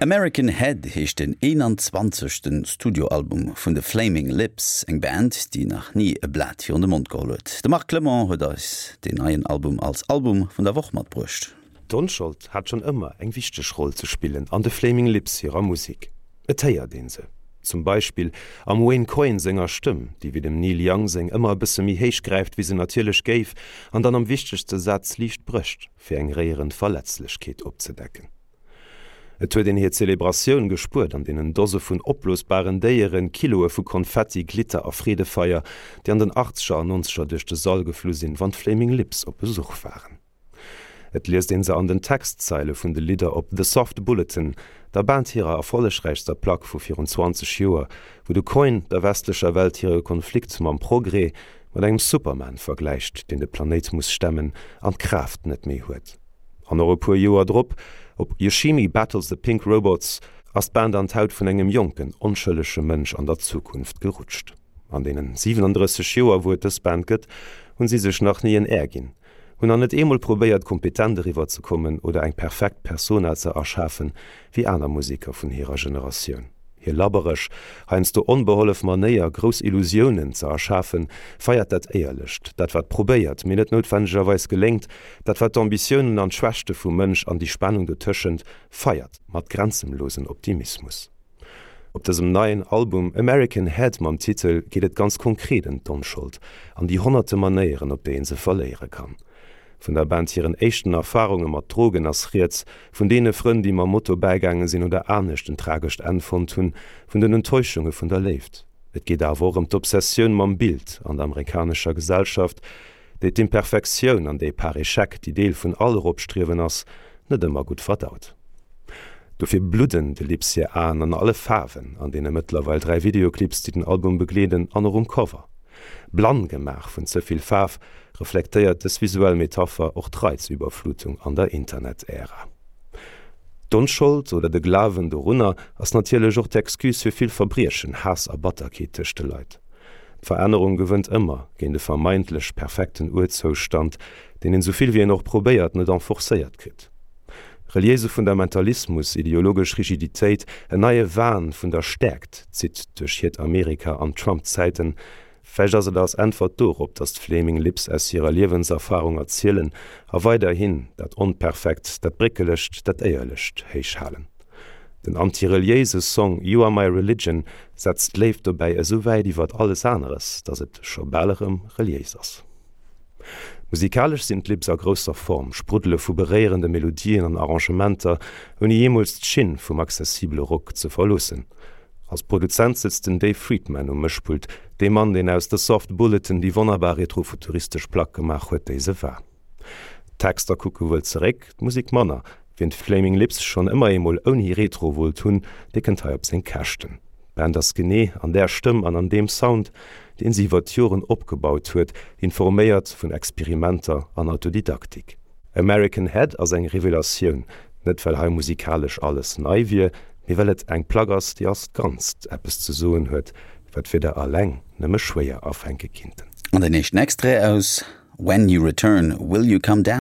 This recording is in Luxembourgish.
American Head heescht den 21. Studioalbum vun de Flaming Lips, eng Band, déi nach ni e Blat virun de Mond geholl huet. De Marc Clement huet eis deen neien Album als Album vun der Woch matbruecht. D'Onschold hat schonn ëmmer eng wichteg Roll ze spillen an de Flaming Lips hirer Musek. Et héiert een se zum Beispill am Wayne Coyne senger Stëmm, déi wéi dem Neil Young seng ëmmer e bësse méi héich gräift wéi se natierlech géif, an dann am wichtegste Saz liicht brécht, fir eng réierend Verletzlechkeet opzedecken. Et huet een hir Zelebratioun gespuert an deenen Dose vun opblosbaren Déieren, Kiloe vu Konfetti, Glitter a Freedefeier, déi an den Achtzeger an Nonzeger duerch de Sall geflu sinn, wann d'Flaming Lips op Besuch waren. Et liest een se an den Textzeile vun de Lidder op The Soft Bulletin, der Band hirer erfollegräichster Plack vu virun 20 Joer, wou de Coyne der westlecher Welt hire Konflikt mam Progrès mat engem Superman vergläicht, deen de Planéit muss stemmen an d'Kraaft net méi huet. An och e puer Joer drop, op Yoshimi Battles the Pink Robots, ass d'Band an d'Haut vun engem jonken, onschëllege Mënsch an der Zukunft gerutscht. An deenen 37 Joer, wou et dës Band gëtt, hunn si sech nach ni en Air ginn, hunn nach net eemol probéiert, kompetent eriwwer ze kommen oder eng perfekt Persona ze erschafen, wéi aner Museker vun hirer Generatioun. Hir labbereg, heiansdo onbehollef Manéier, grouss Illusiounen ze erschafen, feiert dat Éierlecht, dat wat probéiert, mee net noutwendegerweis geléngt, dat wat d'Ambitiounen an d'Schwächte vum Mënsch an déi Spannung dotëschent feiert, mat grenzenlosen Optimismus. Op dësem neien Album American Head mam Titel geet et ganz konkret ëm d'Onschold an déi honnerte Manéieren, op déi een se verléiere kann. Vun der Band hiren éischten Erfarunge mat Drogen ass rieds, vun deene Frënn, déi mam Moto bäigaange sinn oder anescht en tragescht Enn fonnt hunn, vun den Enttäuschunge vun der Léift. Et geet awer och ëm d'Obsessioun mam Bild an der amerikanescher Gesellschaft, déi d'Imperfektioun an déi par échec, déi Deel vun all Eropstriewen ass, net ëmmer gutt verdaut. Dofir bludden de Lips hir Aen an alle Faarwen an deene mëttlerweil 3 Videoclips, déi den Album begleeden an och um Cover. Blann gemaach vun ze vill Faarf, reflektéiert dës visuell Metapher och d'Reizüberflutung an der Internet-Ära. D'Onschold oder de Glawen dorunner ass natierlech och d'Excuse fir vill Verbriechen, Haass a Batterkeet tëscht de Leit. D'Verännerung gewënnt ëmmer géint e vermeintlech perfekten Urzoustand, deen een, souvill wéi een och probéiert, net enforcéiert kritt. Reliéise Fundamentalismus, ideologesch Rigiditéit, en neie Wahn vun der Stäerkt zitt duerch hiert Amerika an Trump-Zäiten. Vläicht ass et als Äntwert dorop, datt d'Flaming Lips aus hirer Liewenserfarung erzielen a weiderhin dat Onperfekt, dat Bréckelegt, dat Éierlecht héich halen. Den antireliéise Song You Are My Religion setzt d'Léift dobäi esou wäit iwwert alles aneres, datt et scho bal erëm reliéis ass. Musikalesch sinn d'Lips a grousser Form, spruddele vu beréierende Melodien an Arrangementer, ouni jeemools d'Schinn vum accessibele Rock ze verloossen. Als Produzent sëtzt den Dave Fridmann um Mëschpult, dee Mann, deen aus The Soft Bulletin déi wonnerbar retrofuturistesch Plack gemaach huet, déi se war. D'Texter kucke wuel zeréck, d'Musek manner. Wien d'Flaming Lips schonn ëmmer eemol ouni Retro wollt hunn, dee kënnt hei op seng Käschten. D'Band ass genee an där Stëmm an an deem Sound, deen si iwwer d'Joren opgebaut huet, informéiert vun Experimenter an Autodidaktik. American Head ass eng Revelatioun, net well hei musikalesch alles nei wier, mee well et eng Plack ass, déi als Ganzt eppes ze soen huet, wat d'Wierder alleng nëmme schwéier afänke kinnten. An den éischten Extrait aus When You Return, Will You Come Down?